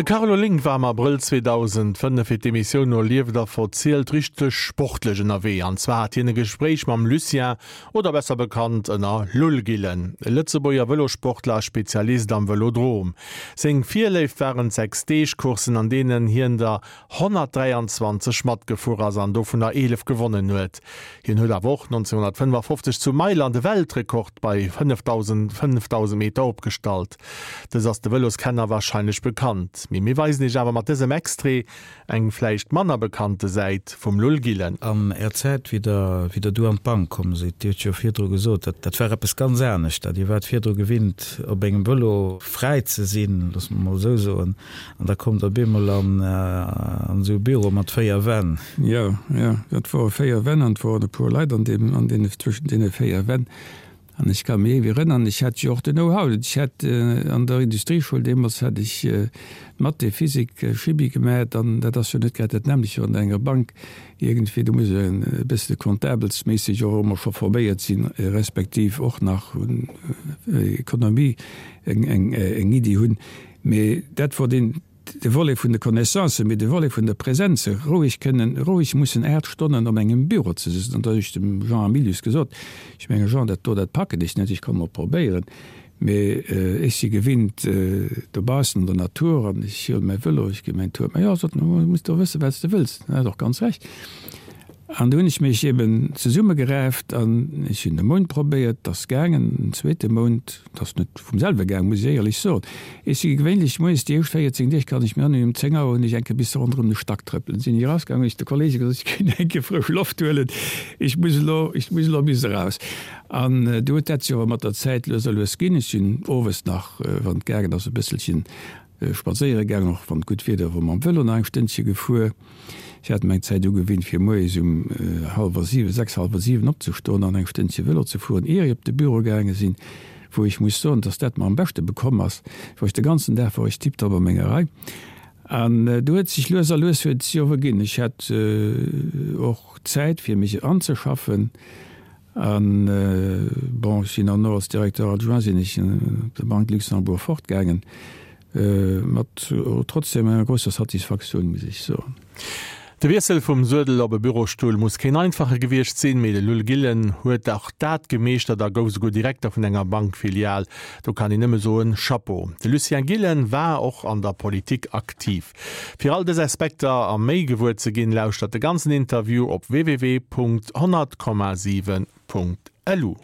De Carlo Link war am Abrëll 2005 fir d'Emissioun No lieft a verzielt richteg sportlech ënnerwee. An zwar hat hien e Gespréich mam Lucien, oder besser bekannt ënner Lull Gillen, e Lëtzebuerger Vëlosportler a Spezialist am Vëlodrom. Seng Virléift waren d'Sechs-Deeg-Courssen, an deenen hien der 123 matgefuer ass an dovunner 11 gewonnen huet. Hien huet awer och 1955 zu Mailand e Weltrekord bei 5.000 Meter opgestallt. Dës ass de Vëloskenner warscheinlech bekannt, mee mir weisen iech awer mat dësem Extrait eng vläicht manner bekannte Säit vum Lull Gillen. An Är Zäit, wéi Der, wéi Der du an d'Bank komm sidd, Dir hutt jo virdru gesot, dat, dat war eppes ganz anescht. Dir waart virdru gewinnt, op engem Vëlo fräi ze sinn, loosse mer mol esou soen. An da kommt op eemol an esou e Büro mat 4 Wänn. Jo, jo, dat wore 4 Wänn an et woren e puer Leit an deem, an deene, zwëschen deene 4 Wänn. An ech ka mech ewéi erënnern, ech hat jo och den Know-how, ech hat an der Industrieschoul deemools hat ech Mathé, Physik, Chimie gemat an dat ass jo net grad dat nämmlecht wéi an enger Bank iergendwéi. Do muss een e bësse comptabelsméisseg och ëmmer scho forméiert sinn, respektiv och nach un Economie eng, eng, eng Iddi hunn. Mee dat wor deen, de Volet vun de Connaissancen, mee de Volet vun der Präsenz, roueg kënnen, roueg mussen 8 Stonnen op engem Büro ze sëtzen. An da hunn ech dem Jean Hamilius gesot, ech menge Jean, dat do, dat packen ech net, ech komme mol probéieren, mee ech si gewinnt dobaussen an der Natur an ech huele mäi Vëlo, ech gi mäin Tour. Mä jo, sot en, du muss do wëssen, wat s de wëlls. En hat och ganz Recht. An du hunn ech mech eben zesummegeraaft an ech hunn e Mount probéiert, 't ass gaangen, en zweete Mount, 't ass net vum selwe gaangen, muss ech éierlech soen. Ech si gewéinlech moies déi éischt 14 Deeg, kann ech mir erënneren, um 10 Auer hunn ech eng Kéier bis ronderëm de Stack trëppelen, sinn ech erausgaangen, hunn ech de Kollege gesot, ech géing eng Kéier frësch Loft huelen, ech muss elo, ech muss elo bis eraus. An du huet dat sech awer mat der Zäit lues a lues ginn. Ech sinn owes nach, wann et gaangen ass, e bësselchen Spadséiere gaangen, och wann gutt Wieder wor, mam Vëlo nach eng Stënnche gefuer. Ech hat mer eng Zäit ugewinnt, fir moies um hallwer siwen, sechs, hallwer siwen opzestoen an eng Stënnche Vëlo ze fueren, ier ech op de Büro gaange sinn, wou ech muss soen, dass dat mer am beschte bekomm ass. Wor ech de ganzen Dag wor ech tiptop a menger Rei. An du huet sech lues a lues huet et sech och erginn. Ech hat och Zäit, fir mech anzeschaffen. An, bon, ech sinn dann och als Directeur adjoint sinn ech op der Banque Luxembourg fortgaangen, mat trotzdem enger grousser Satisfaktioun, muss ech soen. De Wiessel vum Suedel op e Bürostull muss keen einfache gewiescht sinn, mee de Lull Gillen huet och dat gemeeschtert a gouf souguer Direkter vun enger Bankfilial. Do kann een nëmme soen, Chapeau! De Lucien Gillen war och an der Politik aktiv. Fir all dës Aspekter a méi gewuer ze ginn, lauschtert de ganzen Interview op www.100,7.lu.